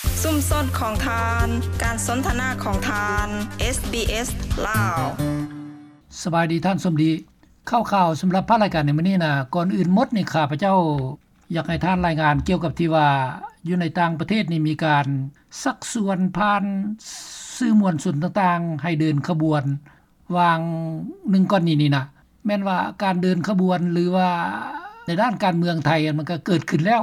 ຊຸມຊົນຂອງທ່ານ, ການສົນທະນາຂອງທ່ານ, ເອສບີເອສ ລາວ. ສະບາຍດີທ່ານສົມດີ. ຂ່າວໆສຳລັບພາກລາຍການໃນມື້ນີ້ນະ, ກ່ອນອື່ນໝົດນີ້ ຂ້າພະເຈົ້າຢາກໃຫ້ທ່ານລາຍງານກ່ຽວກັບທີ່ວ່າ ຢູ່ໃນຕ່າງປະເທດນີ້ມີການຊັກຊວນຜ່ານສື່ມວນຊົນຕ່າງໆ ໃຫ້ເດີນຂະບວນ ຫວ່າງໜຶ່ງກ່ອນນີ້ນີ້ນະ, ແມ່ນວ່າການເດີນຂະບວນ ຫຼືວ່າໃນດ້ານການເມືອງໄທ ມັນກໍເກີດຂຶ້ນແລ້ວ,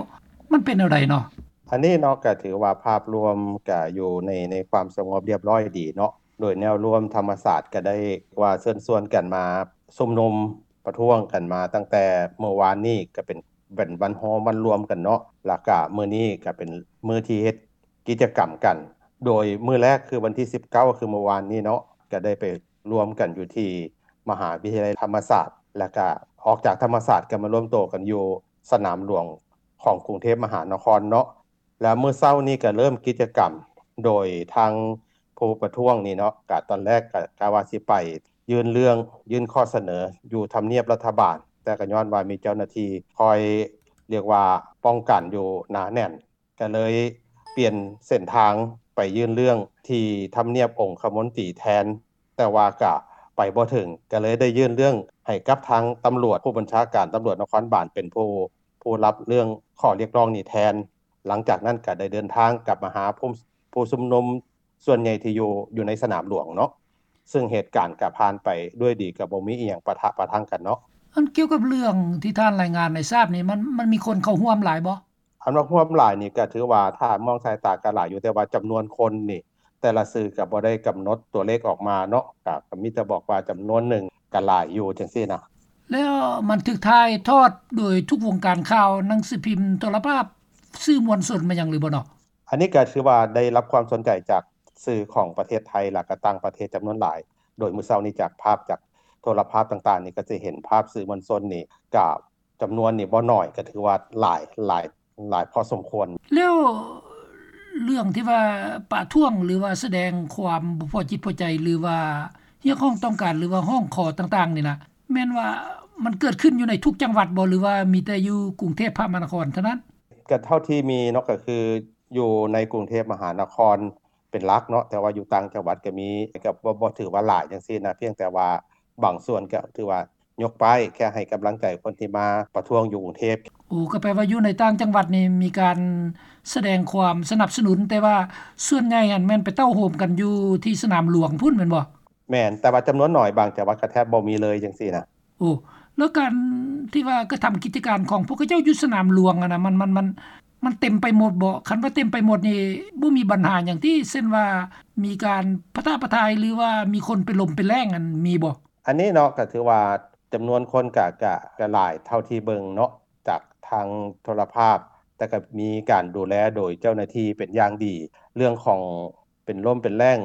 ມັນເປັນແນວໃດເນາະ? ອັນນີ້ເນາະ ກໍຖືວ່າພາບລວມກໍຢູ່ໃນ ໃນຄວາມສະຫງົບລຽບຮ້ອຍດີເນາະ, ໂດຍແນວລວມທຳມະຊາດກໍໄດ້ວ່າເຊີນຊວນກັນມາຊຸມນຸມປະທ້ວງກັນມາຕັ້ງແຕ່ມື້ວານນີ້ ກໍເປັນ ເປັນວັນໂຮມ ວັນລວມກັນເນາະ, ແລ້ວກະມື້ນີ້ກະເປັນມື້ທີ່ເຮັດກິດຈະກຳກັນ, ໂດຍມື້ແລກຄືວັນທີສິບເກົ້າ ຄືມື້ວານນີ້ເນາະ ກະໄດ້ໄປລວມກັນຢູ່ທີ່ມະຫາວິທະຍາໄລທຳມະສາດ, ແລ້ວກະອອກຈາກທຳມະສາດກະມາລວມໂຕກັນຢູ່ສະໜາມຫຼວງຂອງກຸງເທບມະຫານະຄອນເນາະ. ແລ້ວມື້ເຊົ້ານີ້ກະເລີ່ມກິດຈະກຳ ໂດຍທາງຜູ້ປະທ້ວງນີ້ເນາະ ກະຕອນແລກກະ ກະວ່າຊິໄປຍື່ນເລື່ອງ ຍື່ນຂໍ້ສະເໜີຢູ່ທຳນຽບລັດຖະບານ, ແຕ່ກະຍ້ອນວ່າມີເຈົ້າໜ້າທີ່ຄອຍ ລຽກວ່າປ້ອງກັນຢູ່ໜາແໜ້ນ, ກະເລີຍປ່ຽນເສັ້ນທາງໄປຍື່ນເລື່ອງທີ່ທຳນຽບອົງຄະມົນຕີແທນ, ແຕ່ວ່າກະໄປບໍ່ເຖິງ, ກະເລີຍໄດ້ຍື່ນເລື່ອງໃຫ້ກັບທາງຕຳຫຼວດ, ຜູ້ບັນຊາການຕຳຫຼວດນະຄອນບານເປັນຜູ້ ຜູ້ຮັບເລື່ອງຂໍ້ຮຽກຮ້ອງນີ້ແທນ. ຫຼັງຈາກນັ້ນກະໄດ້ເດີນທາງກັບມາຫາຜູ້ ຜູ້ຊຸມນຸມສ່ວນໃຫຍ່ທີ່ຢູ່ ຢູ່ໃນສະໜາມຫຼວງເນາະ, ເຊິ່ງເຫດການກະຜ່ານໄປດ້ວຍດີ, ກະບໍ່ມີອີ່ຫຍັງປະທະປະທັງກັນເນາະ. ອັນກ່ຽວກັບເລື່ອງທີ່ທ່ານລາຍງານໃຫ້ຊາບນີ້ ມັນ ມັນມີຄົນເຂົ້າຮ່ວມຫຼາຍບໍ່? ອັນວ່າຮ່ວມຫຼາຍນີ້ກະຖືວ່າຖ້າມອງສາຍຕາກະຫຼາຍຢູ່, ແຕ່ວ່າຈຳນວນຄົນນີ້ ແຕ່ລະສື່ກະບໍ່ໄດ້ກຳນົດຕົວເລກອອກມາເນາະ, ກະ ກະມີແຕ່ບອກວ່າຈຳນວນໜຶ່ງກະຫຼາຍຢູ່ຈັ່ງຊີ້ນະ. ແລ້ວມັນຖືກຖ່າຍທອດໂດຍທຸກວົງການຂ່າວ, ໜັງສືພິມ, ໂທລະພາບ, ສື່ມວນຊົນມາຫຍັງຫຼືບໍ່ເນາະ? ອັນນີ້ກະຖືວ່າໄດ້ຮັບຄວາມສົນໃຈຈາກສື່ຂອງປະເທດໄທ ແລ້ວກະຕ່າງປະເທດຈຳນວນຫຼາຍ, ໂດຍມື້ເຊົ້ານີ້ຈາກພາບຈາກໂທລະພາບຕ່າງໆນີ້ ກະຈະເຫັນພາບສື່ມວນຊົນນີ້ກະ ຈຳນວນນີ້ບໍ່ໜ້ອຍ, ກໍຖືວ່າຫຼາຍ ຫຼາຍ ຫຼາຍພໍສົມຄວນ. ແລ້ວເລື່ອງທີ່ວ່າປະທ້ວງ ຫຼືວ່າສະແດງຄວາມບໍ່ພໍຈິດພໍໃຈ ຫຼືວ່າຮຽກຮ້ອງຕ້ອງການ ຫຼືວ່າຮ້ອງຂໍຕ່າງໆນີ້ນະ ແມ່ນວ່າມັນເກີດຂຶ້ນຢູ່ໃນທຸກຈັງຫວັດບໍ່ ຫຼືວ່າມີແຕ່ຢູ່ກຸງເທບມະຫານະຄອນເທົ່ານັ້ນ? ກໍເທົ່າທີ່ມີເນາະ ກໍຄືຢູ່ໃນກຸງເທບມະຫານະຄອນເປັນຫຼັກເນາະ, ແຕ່ວ່າຢູ່ຕ່າງຈັງຫວັດກໍມີ, ກໍບໍ່ ບໍ່ຖືວ່າຫຼາຍຈັ່ງຊີ້ນະ, ພຽງແຕ່ວ່າບາງສ່ວນກໍຖືວ່າ ຍົກປ້າຍແຄ່ໃຫ້ກຳລັງໃຈຄົນທີ່ມາປະທ້ວງຢູ່ກຸງເທບ. ໂອ້ ກໍແປວ່າຢູ່ໃນຕ່າງຈັງຫວັດນີ້ມີການສະແດງຄວາມສະໜັບສະໜູນ, ແຕ່ວ່າສ່ວນໃຫຍ່ຫັ້ນແມ່ນໄປເຕົ້າໂຮມກັນຢູ່ທີ່ສະໜາມຫຼວງພຸ້ນແມ່ນບໍ່? ແມ່ນ, ແຕ່ວ່າຈຳນວນໜ້ອຍ, ບາງຈັງຫວັດກໍແທບບໍ່ມີເລີຍຈັ່ງຊີ້ນະ. ໂອ້ ແລ້ວການທີ່ວ່າກະທຳກິດຈະການຂອງພວກເຂົາເຈົ້າຢູ່ສະໜາມຫຼວງຫັ້ນນະ ມັນ ມັນ ມັນ ມັນເຕັມໄປໝົດບໍ່? ຄັນວ່າເຕັມໄປໝົດນີ້ ບໍ່ມີບັນຫາຫຍັງຕິ? ເຊັ່ນວ່າມີການປະທະປະທາຍ ຫຼືວ່າມີຄົນເປັນລົມເປັນແລ້ງຫັ້ນ ມີບໍ່? ອັນນີ້ເນາະ ກໍຖືວ່າຈຳນວນຄົນກະ ກະ ກະຫຼາຍເທົ່າທີ່ເບິ່ງເນາະ ຈາກທາງໂທລະພາບ, ແຕ່ກະມີການດູແລໂດຍເຈົ້າໜ້າທີ່ເປັນຢ່າງດີ. ເລື່ອງຂອງເປັນລົມເປັນແລ້ງ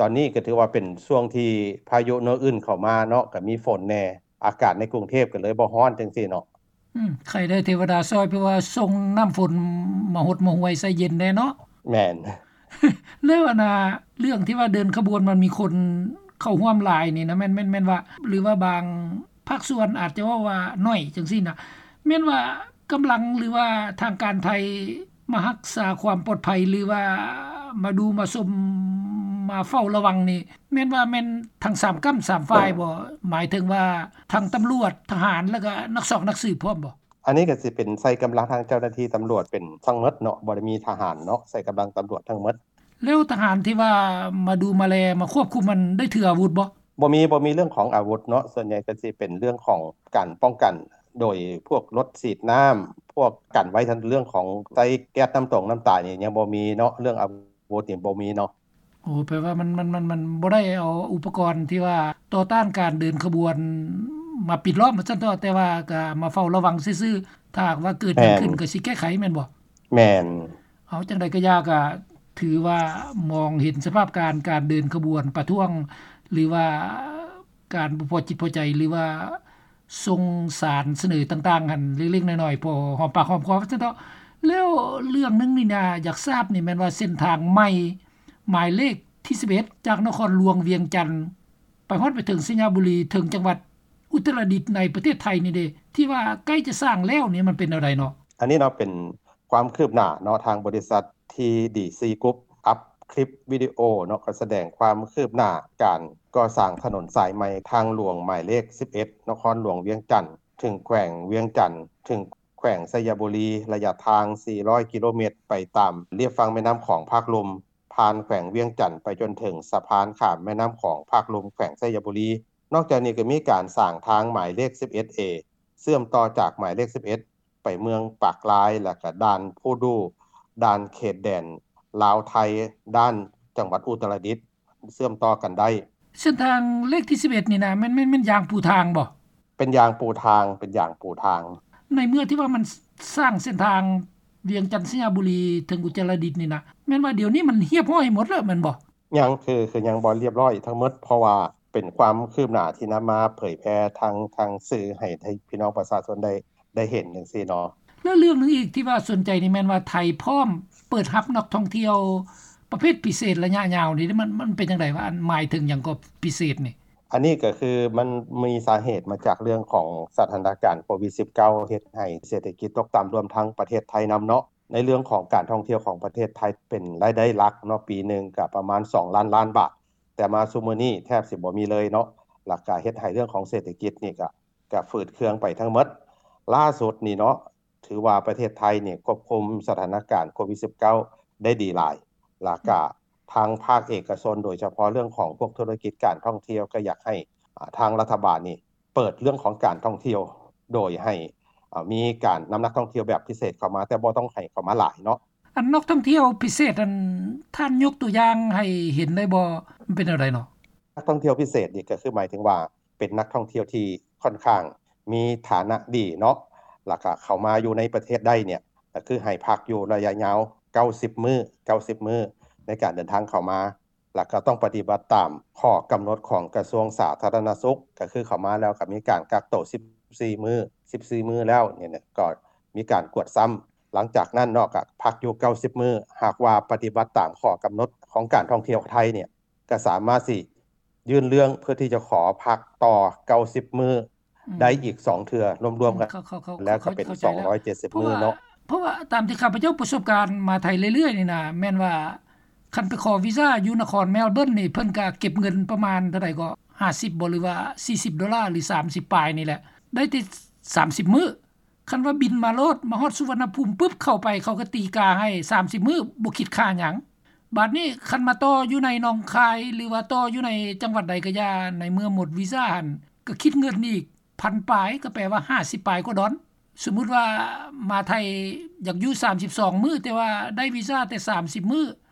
ຕອນນີ້ກະຖືວ່າເປັນຊ່ວງທີ່ພາຍຸໂນອຶນເຂົ້າມາເນາະ, ກະມີຝົນແດ່, ອາກາດໃນກຸງເທບກະເລີຍບໍ່ຮ້ອນຈັ່ງຊີ້ເນາະ. ອືມ ໄຄແດ່ເທວະດາຊ່ອຍ ເພາະວ່າສົ່ງນ້ຳຝົນມາຫົດມາຫ້ວຍໃສ່ເຢັນແດ່ເນາະ. ແມ່ນ. ແລ້ວອັນນ່າ ເລື່ອງທີ່ວ່າເດີນຂະບວນມັນມີຄົນເຂົ້າຮ່ວມຫຼາຍນີ້ນະ ແມ່ນ ແມ່ນ ແມ່ນວ່າ ຫຼືວ່າບາງພາກສ່ວນອາດຈະເວົ້າວ່າໜ້ອຍຈັ່ງຊີ້ນະ ແມ່ນວ່າກຳລັງ ຫຼືວ່າທາງການໄທມາຮັກສາຄວາມປອດໄພ ຫຼືວ່າມາດູມາຊົມ ມາເຝົ້າລະວັງນີ້ ແມ່ນວ່າແມ່ນທັງສາມກ້ຳສາມຝ່າຍບໍ່? ໝາຍເຖິງວ່າທັງຕຳຫຼວດ, ທະຫານ ແລ້ວກະນັກຊອກນັກສືບພ້ອມບໍ່? ອັນນີ້ກະຊິເປັນໃຊ້ກຳລັງທາງເຈົ້າໜ້າທີ່ຕຳຫຼວດເປັນທັງໝົດເນາະ, ບໍ່ໄດ້ມີທະຫານເນາະ, ໃຊ້ກຳລັງຕຳຫຼວດທັງໝົດ. ແລ້ວທະຫານທີ່ວ່າມາດູມາແລມາຄວບຄຸມຫັ້ນ ໄດ້ຖືອາວຸດບໍ່? ບໍ່ມີ, ບໍ່ມີເລື່ອງຂອງອາວຸດເນາະ, ສ່ວນໃຫຍ່ກະຊິເປັນເລື່ອງຂອງການປ້ອງກັນ ໂດຍພວກລົດສີດນ້ຳ, ພວກກັນໄວ້ທັງເລື່ອງຂອງໃຊ້ແກັສນ້ຳຕົງນ້ຳຕາຍນີ້ຍັງບໍ່ມີເນາະ, ເລື່ອງອາວຸດນີ້ບໍ່ມີເນາະ. ໂອ້ ແປວ່າມັນ ມັນ ມັນ ມັນບໍ່ໄດ້ເອົາອຸປະກອນທີ່ວ່າຕໍ່ຕ້ານການເດີນຂະບວນມາປິດລ້ອມວ່າຊັ້ນເຖາະ, ແຕ່ວ່າກະມາເຝົ້າລະວັງຊື່ໆ, ຖ້າຫາກວ່າເກີດຫຍັງຂຶ້ນ ແມ່ນ ກະຊິແກ້ໄຂແມ່ນບໍ່? ແມ່ນ. ເອົາ ຈັ່ງໃດກະຢ່າ ກະຖືວ່າມອງເຫັນສະພາບການ ການເດີນຂະບວນປະທ້ວງ ຫຼືວ່າການບໍ່ພໍຈິດພໍໃຈ ຫຼືວ່າ ສົ່ງສານສະເໜີຕ່າງໆຫັ້ນເລັກໆນ້ອຍໆ ພໍຫອມປາກຫອມຄໍວ່າຊັ້ນເຖາະ. ແລ້ວເລື່ອງໜຶ່ງນີ້ນະ ຢາກຊາບນີ້ແມ່ນວ່າເສັ້ນທາງໃໝ່ ໝາຍເລກທີສິບເອັດ ຈາກນະຄອນຫຼວງວຽງຈັນ ໄປຮອດໄປເຖິງໄຊຍະບູລີ ເຖິງຈັງຫວັດອຸດຕະລະດິດໃນປະເທດໄທນີ້ເດ ທີ່ວ່າໃກ້ຈະສ້າງແລ້ວນີ້ ມັນເປັນແນວໃດເນາະ? ອັນນີ້ເນາະ ເປັນຄວາມຄືບໜ້າເນາະ ທາງບໍລິສັດ ທີດີຊີ Group ອັບຄລິບວິດີໂອເນາະ ກໍສະແດງຄວາມຄືບໜ້າການກໍ່ສ້າງຖະໜົນສາຍໃໝ່ທາງຫຼວງໝາຍເລກສິບເອັດ ນະຄອນຫຼວງວຽງຈັນ ເຖິງແຂວງວຽງຈັນ ເຖິງແຂວງໄຊຍະບູລີ ໄລຍະທາງສີ່ຮ້ອຍກິໂລແມັດ ໄປຕາມລຽບຝັ່ງແມ່ນ້ຳຂອງພາກລຸ່ມ ຜ່ານແຂວງວຽງຈັນໄປຈົນເຖິງສະພານຂ້າມແມ່ນ້ຳຂອງພາກລຸ່ມແຂວງໄຊຍະບູລີ. ນອກຈາກນີ້ກໍມີການສ້າງທາງໝາຍເລກສິບເອັດເອ ເຊື່ອມຕໍ່ຈາກໝາຍເລກສິບເອັດ ໄປເມືອງປາກລາຍ ແລ້ວກໍດ່ານພູດູ່ ດ່ານເຂດແດນລາວໄທ ດ້ານຈັງຫວັດອຸດຕະລະດິດ ເຊື່ອມຕໍ່ກັນໄດ້. ເສັ້ນທາງເລກທີສິບເອັດນີ້ນະ ແມ່ນ ແມ່ນ ແມ່ນຢາງປູທາງບໍ່? ເປັນຢາງປູທາງ ເປັນຢາງປູທາງ. ໃນເມື່ອທີ່ວ່າມັນ ສ- ສ້າງເສັ້ນທາງວຽງຈັນ ໄຊຍະບູລີ ເຖິງອຸດຕະລະດິດນີ້ນະ ແມ່ນວ່າດຽວນີ້ມັນຮຽບຮ້ອຍໝົດແລ້ວແມ່ນບໍ່? ຍັງ ຄື ຄືຍັງບໍ່ຮຽບຮ້ອຍທັງໝົດ ເພາະວ່າເປັນຄວາມຄືບໜ້າທີ່ນຳມາເຜີຍແຜ່ທາງ ທາງສື່ໃຫ້ ໃຫ້ພີ່ນ້ອງປະຊາຊົນໄດ້ ໄດ້ເຫັນຈັ່ງຊີ້ເນາະ. ແລ້ວເລື່ອງໜຶ່ງອີກທີ່ວ່າສົນໃຈນີ້ແມ່ນວ່າໄທພ້ອມເປີດຮັບນັກທ່ອງທ່ຽວປະເພດພິເສດໄລຍະຍາວນີ້ ມັນ ມັນເປັນຈັ່ງໃດວະ? ອັນໝາຍເຖິງຫຍັງກໍພິເສດນີ້? ອັນນີ້ກໍຄືມັນມີສາເຫດມາຈາກເລື່ອງຂອງສະຖານະການໂຄວິດສິບເກົ້າ ເຮັດໃຫ້ເສດຖະກິດຕົກຕ່ຳ ລວມທັງປະເທດໄທນຳເນາະ. ໃນເລື່ອງຂອງການທ່ອງທ່ຽວຂອງປະເທດໄທເປັນລາຍໄດ້ຫຼັກເນາະ ປີໜຶ່ງກໍປະມານສອງລ້ານລ້ານບາດ ແຕ່ມາຊຸມື້ນີ້ແທບຊິບໍ່ມີເລີຍເນາະ ແລ້ວກໍເຮັດໃຫ້ເລື່ອງຂອງເສດຖະກິດນີ້ກໍ ກໍຝືດເຄືອງໄປທັງໝົດ. ລ່າສຸດນີ້ເນາະ ຖືວ່າປະເທດໄທນີ້ຄວບຄຸມສະຖານະການໂຄວິດສິບເກົ້າ ໄດ້ດີຫຼາຍ ແລ້ວກໍທາງພາກເອກະຊົນ ໂດຍສະເພາະເລື່ອງຂອງພວກທຸລະກິດການທ່ອງທ່ຽວ ກໍຢາກໃຫ້ ອາ ທາງລັດຖະບານນີ້ ເປີດເລື່ອງຂອງການທ່ອງທ່ຽວ ໂດຍໃຫ້ ເອີ ມີການນຳນັກທ່ອງທ່ຽວແບບພິເສດເຂົ້າມາ ແຕ່ບໍ່ຕ້ອງໃຫ້ເຂົ້າມາຫຼາຍເນາະ. ອັນນັກທ່ອງທ່ຽວພິເສດນັ້ນ ທ່ານຍົກຕົວຢ່າງໃຫ້ເຫັນໄດ້ບໍ່? ມັນເປັນແນວໃດເນາະ? ນັກທ່ອງທ່ຽວພິເສດນີ້ກໍຄືໝາຍເຖິງວ່າ ເປັນນັກທ່ອງທ່ຽວທີ່ຂ້ອນຂ້າງມີຖານະດີເນາະ ແລ້ວກໍເຂົ້າມາຢູ່ໃນປະເທດໄດ້ເນ່ຍ ກໍຄືໃຫ້ພັກຢູ່ໄລຍະຍາວເກົ້າສິບມື້ ເກົ້າສິບມື້ ໃນການເດີນທາງເຂົ້າມາ. ແລ້ວກໍຕ້ອງປະຕິບັດຕາມຂໍ້ກຳນົດຂອງກະຊວງສາທາລະນະສຸກ ກໍຄືເຂົ້າມາແລ້ວກໍມີການກັກໂຕສິບສີ່ມື້ ສິບສີ່ມື້ແລ້ວນີ້ນະ ກໍມີການກວດຊ້ຳ. ຫຼັງຈາກນັ້ນເນາະ ກໍພັກຢູ່ເກົ້າສິບມື້ ຫາກວ່າປະຕິບັດຕາມຂໍ້ກຳນົດຂອງການທ່ອງທ່ຽວໄທນີ້ ກໍສາມາດຊິຍື່ນເລື່ອງເພື່ອທີ່ຈະຂໍພັກຕໍ່ເກົ້າສິບມື້ ອືມ ໄດ້ອີກສອງເທື່ອ ລວມໆກັນ ເຂົ້າ ເຂົ້າ ເຂົ້າ ແລ້ວກໍເປັນ ເຂົ້າໃຈແລ້ວ ສອງຮ້ອຍເຈັດສິບມື້ເນາະ. ເພາະວ່າ ເພາະວ່າຕາມທີ່ຂ້າພະເຈົ້າປະສົບການມາໄທເລື້ອຍໆນີ້ນະ ແມ່ນວ່າຄັນໄປຂໍວີຊາຢູ່ນະຄອນແມລເບີນນີ້ ເພິ່ນກໍເກັບເງິນປະມານເທົ່າໃດກໍ ຫ້າສິບບໍ່ ຫຼືວ່າສີ່ສິບໂດລາ ຫຼືສາມສິບປາຍນີ້ແຫຼະ ໄດ້ແຕ່ສາມສິບມື້. ຄັນວ່າບິນມາໂລດ ມາຮອດສຸວັນນະພູມປຶບ ເຂົ້າໄປ ເຂົາກໍຕີກາໃຫ້ສາມສິບມື້ ບໍ່ຄິດຄ່າຫຍັງ. ບາດນີ້ຄັນມາຕໍ່ຢູ່ໃນໜອງຄາຍ ຫຼືວ່າຕໍ່ຢູ່ໃນຈັງຫວັດໃດກໍຢ່າ ໃນເມື່ອໝົດວີຊາຫັ້ນ ກໍຄິດເງິນອີກພັນປາຍ ກໍແປວ່າຫ້າສິບປາຍກວ່າດອນ. ສົມມຸດວ່າມາໄທຢາກຢູ່ສາມສິບສອງມື້ ແຕ່ວ່າໄດ້ວີຊາແຕ່ສາມສິບມື້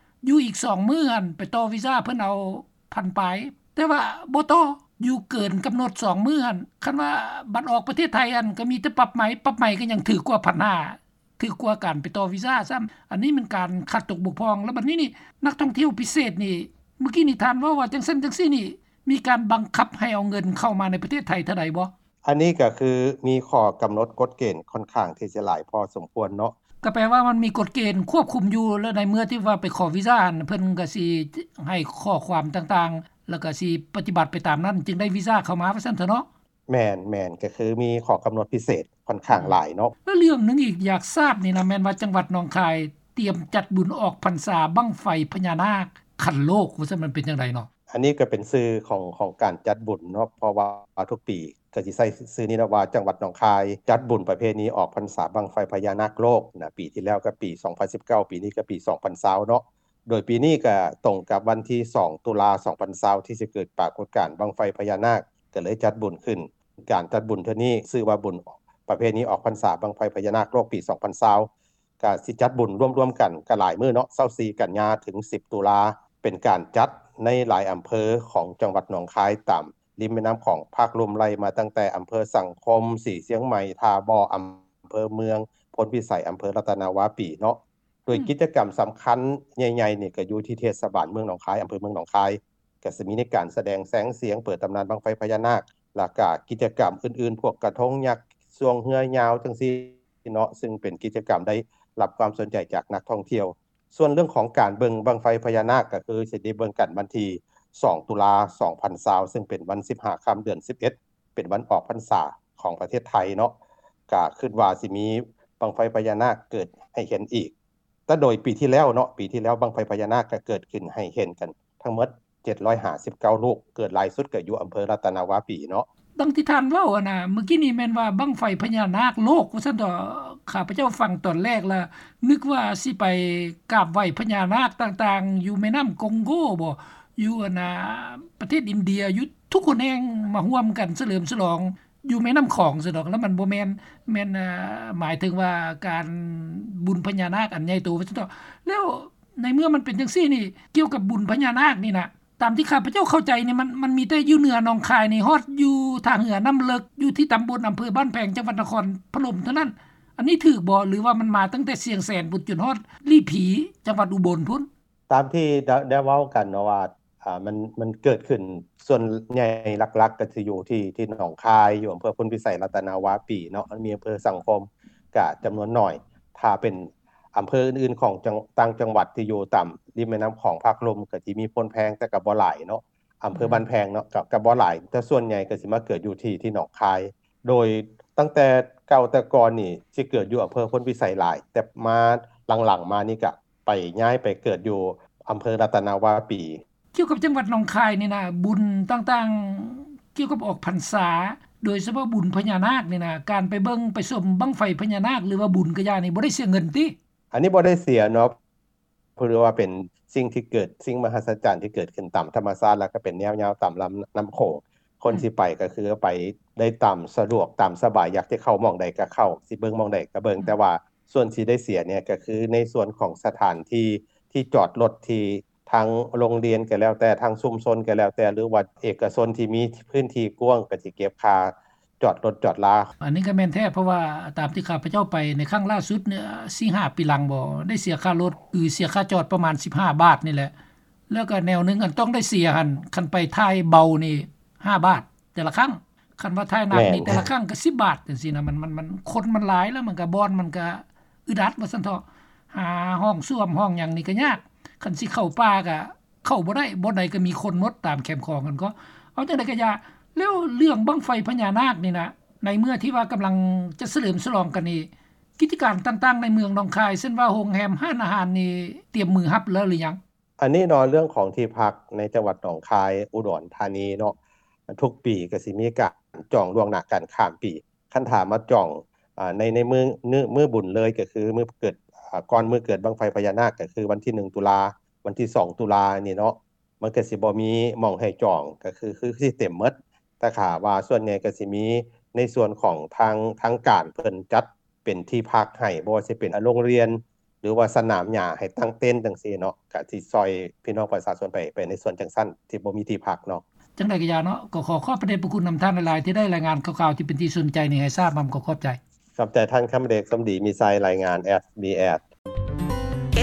ຢູ່ອີກສອງມື້ຫັ້ນ ໄປຕໍ່ວີຊາ ເພິ່ນເອົາພັນປາຍ ແຕ່ວ່າບໍ່ຕໍ່ ຢູ່ເກີນກຳນົດສອງມື້ຫັ້ນ. ຄັນວ່າບັດອອກປະເທດໄທຫັ້ນ ກໍມີແຕ່ປັບໃໝ ປັບໃໝກໍຍັງຖືກກວ່າພັນຫ້າ ຖືກກວ່າການໄປຕໍ່ວີຊາຊ້ຳ. ອັນນີ້ແມ່ນການຂາດຕົກບົກຜ່ອງ. ແລ້ວບັດນີ້ນີ້ ນັກທ່ອງທ່ຽວພິເສດນີ້ ມື້ກີ້ນີ້ທ່ານເວົ້າວ່າຈັ່ງຊັ້ນຈັ່ງຊີ້ນີ້ ມີການບັງຄັບໃຫ້ເອົາເງິນເຂົ້າມາໃນປະເທດໄທເທົ່າໃດບໍ່? ອັນນີ້ກໍຄືມີຂໍ້ກຳນົດກົດເກນຂ້ອນຂ້າງທີ່ຈະຫຼາຍພໍສົມຄວນເນາະ. ກໍແປວ່າມັນມີກົດເກນຄວບຄຸມຢູ່ ແລະ ໃນເມື່ອທີ່ວ່າໄປຂໍວີຊາຫັ້ນ ເພິ່ນກໍຊິໃຫ້ຂໍ້ຄວາມຕ່າງໆ ແລ້ວກໍຊິປະຕິບັດໄປຕາມນັ້ນ ຈຶ່ງໄດ້ວີຊາເຂົ້າມາ ວ່າຊັ້ນເຖາະເນາະ. ແມ່ນໆ ກໍຄືມີຂໍ້ກຳນົດພິເສດຂ້ອນຂ້າງ ອືມ ຫຼາຍເນາະ. ແລ້ວເລື່ອງໜຶ່ງອີກຢາກຊາບນີ້ນະ ແມ່ນວ່າຈັງຫວັດໜອງຄາຍຕຽມຈັດບຸນອອກພັນສາບັ້ງໄຟພະຍານາກຂັ້ນໂລກ ວ່າຊັ້ນ ມັນເປັນຈັ່ງໃດເນາະ? ອັນນີ້ກໍເປັນຊື່ຂອງ ຂອງການຈັດບຸນເນາະ ເພາະວ່າທຸກປີກໍຊິໃຊ້ຊື່ນີ້ເນາະ ວ່າຈັງຫວັດໜອງຄາຍຈັດບຸນປະເພນີອອກພັນສາບັ້ງໄຟພະຍານາກໂລກນະ. ປີທີ່ແລ້ວກໍປີສອງພັນສິບເກົ້າ ປີນີ້ກໍປີສອງພັນຊາວເນາະ. ໂດຍປີນີ້ກໍຕົງກັບວັນທີສອງ ຕຸລາ ສອງພັນຊາວ ທີ່ຊິເກີດປາກົດການບັ້ງໄຟພະຍານາກ ກໍເລີຍຈັດບຸນຂຶ້ນ. ການຈັດບຸນເທື່ອນີ້ຊື່ວ່າບຸນປະເພນີອອກພັນສາບັ້ງໄຟພະຍານາກໂລກປີສອງພັນຊາວ ກະຊິຈັດບຸນລວມໆກັນກະຫຼາຍມື້ເນາະ ຊາວສີ່ກັນຍາເຖິງສິບຕຸລາ ເປັນການຈັດໃນຫຼາຍອຳເພີຂອງຈັງຫວັດໜອງຄາຍ ຕາມລິມແມ່ນ້ຳຂອງພາກລຸ່ມ ໄລ່ມາຕັ້ງແຕ່ອຳເພີສັງຄົມ, ສີຊຽງໃໝ່, ທ່າບໍ່, ອຳເພີເມືອງ, ໂພນພິໄສ, ອຳເພີລັດຕະນາວາປີເນາະ. ໂດຍ ອືມ ກິດຈະກຳສຳຄັນໃຫຍ່ໆນີ້ກະຢູ່ທີ່ເທດສະບານເມືອງໜອງຄາຍ, ອຳເພີເມືອງໜອງຄາຍ ກະຊິມີໃນການສະແດງແສງສຽງ, ເປີດຕຳນານບັ້ງໄຟພະຍານາກ ແລ້ວກະກິດຈະກຳອື່ນໆ ພວກກະທົງຍັກ, ຊ່ວງເຮືອຍາວຈັ່ງຊີ້ເນາະ, ຊຶ່ງເປັນກິດຈະກຳໄດ້ຮັບຄວາມສົນໃຈຈາກນັກທ່ອງທ່ຽວ. ສ່ວນເລື່ອງຂອງການເບິ່ງບັ້ງໄຟພະຍານາກ ກະຄືຊິໄດ້ເບິ່ງກັນວັນທີສອງ ຕຸລາ ສອງພັນຊາວ ຊຶ່ງເປັນວັນສິບຫ້າຄ່ຳເດືອນສິບເອັດ ເປັນວັນອອກພັນສາຂອງປະເທດໄທເນາະ, ກະຄິດວ່າຊິມີບັ້ງໄຟພະຍານາກເກີດໃຫ້ເຫັນອີກ. ແຕ່ໂດຍປີທີ່ແລ້ວເນາະ ປີທີ່ແລ້ວບັ້ງໄຟພະຍານາກກໍເກີດຂຶ້ນໃຫ້ເຫັນກັນທັງໝົດ ເຈັດຮ້ອຍຫ້າສິບເກົ້າລູກ ເກີດຫຼາຍສຸດກໍຢູ່ອຳເພີລັດຕະນະວາປີເນາະ. ດັ່ງທີ່ທ່ານເວົ້າຫັ້ນນະ ເມື່ອກີ້ນີ້ແມ່ນວ່າບັ້ງໄຟພະຍານາກໂລກວ່າຊັ້ນເຖາະ. ຂ້າພະເຈົ້າຟັງຕອນແລກລະນຶກວ່າຊິໄປກາບໄຫວ້ພະຍານາກຕ່າງໆ ຢູ່ແມ່ນ້ຳກອງໂກບໍ ຢູ່ອັນນະ ປະເທດອິນເດຍ ຢູ່ທຸກຫົນແຫ່ງມາຮ່ວມກັນສະເຫຼີມສະຫຼອງຢູ່ແມ່ນ້ຳຂອງຊັ້ນດອກ ແລ້ວມັນບໍ່ແມ່ນ ແມ່ນ ເອີ ໝາຍເຖິງວ່າການບຸນພະຍານາກອັນໃຫຍ່ໂຕວ່າຊັ້ນເຖາະ. ແລ້ວໃນເມື່ອມັນເປັນຈັ່ງຊີ້ນີ້ ກ່ຽວກັບບຸນພະຍານາກນີ້ນະ ຕາມທີ່ຂ້າພະເຈົ້າເຂົ້າໃຈນີ້ ມັນ ມັນມີແຕ່ຢູ່ເໜືອໜອງຄາຍນີ້ ຮອດຢູ່ທ່າເຮືອນ້ຳເລິກ ຢູ່ທີ່ຕຳບົນ ອຳເພີບ້ານແພງ ຈັງຫວັດນະຄອນພະນົມເທົ່ານັ້ນ. ອັນນີ້ຖືກບໍ່ ຫຼືວ່າມັນມາຕັ້ງແຕ່ຊຽງແສນພຸ້ນ ຈົນຮອດຫຼີ່ຜີ ຈັງຫວັດອຸບົນພຸ້ນ? ຕາມທີ່ໄດ້ ໄດ້ເວົ້າກັນເນາະວ່າ ອ່າ ມັນ ມັນເກີດຂຶ້ນສ່ວນໃຫຍ່ຫຼັກໆ ກໍຊິຢູ່ທີ່ ທີ່ໜອງຄາຍ ຢູ່ອຳເພີໂພນພິໄສ ລັດຕະນະວາປີເນາະ ມັນມີອຳເພີສັງຄົມກະຈຳນວນໜ້ອຍ. ຖ້າເປັນອຳເພີອື່ນໆ ຂອງຈັງ ຕ່າງຈັງຫວັດທີ່ຢູ່ຕາມລິມແມ່ນ້ຳຂອງພາກລຸ່ມ ກໍຊິມີໂພນແພງ ແຕ່ກໍບໍ່ຫຼາຍເນາະ ອຳເພີ ອືມ ບ້ານແພງເນາະ ກໍ ກໍບໍ່ຫຼາຍ ແຕ່ສ່ວນໃຫຍ່ກໍຊິມາເກີດຢູ່ທີ່ ທີ່ໜອງຄາຍ. ໂດຍຕັ້ງແຕ່ເກົ່າແຕ່ກ່ອນນີ້ ຊິເກີດຢູ່ອຳເພີໂພນພິໄສຫຼາຍ ແຕ່ມາຫຼັງໆມານີ້ກະ ໄປ ຍ້າຍໄປເກີດຢູ່ອຳເພີລັດຕະນະວາປີ. ກ່ຽວກັບຈັງຫວັດໜອງຄາຍນີ້ນະ ບຸນຕ່າງໆ ກ່ຽວກັບອອກພັນສາ ໂດຍສະເພາະບຸນພະຍານາກນີ້ນະ ການໄປເບິ່ງໄປຊົມບັ້ງໄຟພະຍານາກ ຫຼືວ່າບຸນກະຢ່ານີ້ ບໍ່ໄດ້ເສຍເງິນຕິ? ອັນນີ້ບໍ່ໄດ້ເສຍເນາະ ເພາະວ່າເປັນສິ່ງທີ່ເກີດ ສິ່ງມະຫັດສະຈັນທີ່ເກີດຂຶ້ນຕາມທຳມະຊາດ ແລ້ວກໍເປັນແນວຍາວຕາມລຳນ້ຳໂຂງ. ຄົນ ອືມ ຊິໄປກໍຄືໄປໄດ້ຕາມສະດວກຕາມສະບາຍ ຢາກຈະເຂົ້າໝ່ອງໃດກໍເຂົ້າ ຊິເບິ່ງໝ່ອງໃດກໍເບິ່ງ ອືມ ແຕ່ວ່າ ສ່ວນທີ່ໄດ້ເສຍນີ້ກໍຄືໃນສ່ວນຂອງສະຖານທີ່ ທີ່ຈອດລົດ ທີ່ທາງໂຮງຮຽນກໍແລ້ວແຕ່ ທາງຊຸມຊົນກໍແລ້ວແຕ່ ຫຼືວ່າເອກະຊົນທີ່ມີພື້ນທີ່ກວ້າງ ກໍຊິເກັບຄ່າຈອດລົດຈອດລາ. ອັນນີ້ກໍແມ່ນແທ້ ເພາະວ່າຕາມທີ່ຂ້າພະເຈົ້າໄປໃນຄັ້ງລ່າສຸດນີ້ ສີ່ຫ້າປີຫຼັງບໍ ໄດ້ເສຍຄ່າລົດ ຫຼືເສຍຄ່າຈອດປະມານສິບຫ້າບາດນີ້ແຫຼະ. ແລ້ວກໍແນວໜຶ່ງອັນຕ້ອງໄດ້ເສຍຫັ້ນ ຄັນໄປທ້າຍເບົານີ້ຫ້າບາດແຕ່ລະຄັ້ງ ຄັນວ່າທ້າຍໜັກນີ້ ແມ່ນ ແຕ່ລະຄັ້ງກໍສິບບາດຈັ່ງຊີ້ນະ. ມັນ ມັນ ມັນ ຄົນມັນຫຼາຍ ແລ້ວມັນກໍ ບ່ອນມັນກໍອຶດອັດວ່າຊັ້ນເຖາະ ຫາຫ້ອງສ້ວມຫ້ອງຫຍັງນີ້ກໍຍາກ ຄັນຊິເຂົ້າປ່າກໍເຂົ້າບໍ່ໄດ້ ບ່ອນໃດກໍມີຄົນໝົດຕາມແຄມຂອງຫັ້ນກໍ. ເອົາຈັ່ງໃດກໍຢ່າ ແລ້ວເລື່ອງບັ້ງໄຟພະຍານາກນີ້ນະ ໃນເມື່ອທີ່ວ່າກຳລັງຈະສະເຫຼີມສະຫຼອງກັນນີ້ ກິດຈະການຕ່າງໆໃນເມືອງໜອງຄາຍ ເຊັ່ນວ່າໂຮງແຮມ ຮ້ານອາຫານນີ້ ຕຽມມືຮັບແລ້ວຫຼືຍັງ? ອັນນີ້ເນາະ ເລື່ອງຂອງທີ່ພັກໃນຈັງຫວັດໜອງຄາຍ ອຸດອນທານີເນາະ ທຸກປີກໍຊິມີການຈອງລ່ວງໜ້າກັນຂ້າມປີ. ຄັນຖ້າມາຈອງ ອາ ໃນ ໃນມື້ ມື້ ມື້ບຸນເລີຍ ກໍຄືມື້ເກີດ ອາ ກ່ອນມື້ເກີດບັ້ງໄຟພະຍານາກ ກໍຄືວັນທີໜຶ່ງຕຸລາ ວັນທີສອງຕຸລານີ້ເນາະ ມັນກໍຊິບໍ່ມີໝ່ອງໃຫ້ຈອງ ກໍຄື ຄືຊິເຕັມໝົດ. ແຕ່ຖ້າວ່າສ່ວນໃຫຍ່ກໍຊິມີໃນສ່ວນຂອງທາງ ທາງການເພິ່ນຈັດ ເປັນທີ່ພັກໃຫ້ ບໍ່ວ່າຊິເປັນ ອາ ໂຮງຮຽນ ຫຼືວ່າສະໜາມຫຍ້າໃຫ້ຕັ້ງເຕັນຈັ່ງຊີ້ເນາະ ກະຊິຊ່ອຍພີ່ນ້ອງປະຊາຊົນໄປ ໄປໃນສ່ວນຈັ່ງຊັ້ນ ທີ່ບໍ່ມີທີ່ພັກເນາະ. ຈັ່ງໃດກໍຢ່າເນາະ ກໍຂໍຂອບພະເດດພະຄຸນນຳທ່ານຫຼາຍໆ ທີ່ໄດ້ລາຍງານຂ່າວໆທີ່ເປັນທີ່ສົນໃຈນີ້ໃຫ້ຊາບນຳ. ຂໍຂອບໃຈ. ຂອບໃຈທ່ານຄຳເດດ ສົມດີມີໄຊ ລາຍງານ SBS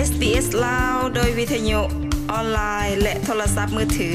SBS ລາວ ໂດຍວິທະຍຸ ອອນລາຍ ແລະ ໂທລະສັບມືຖື.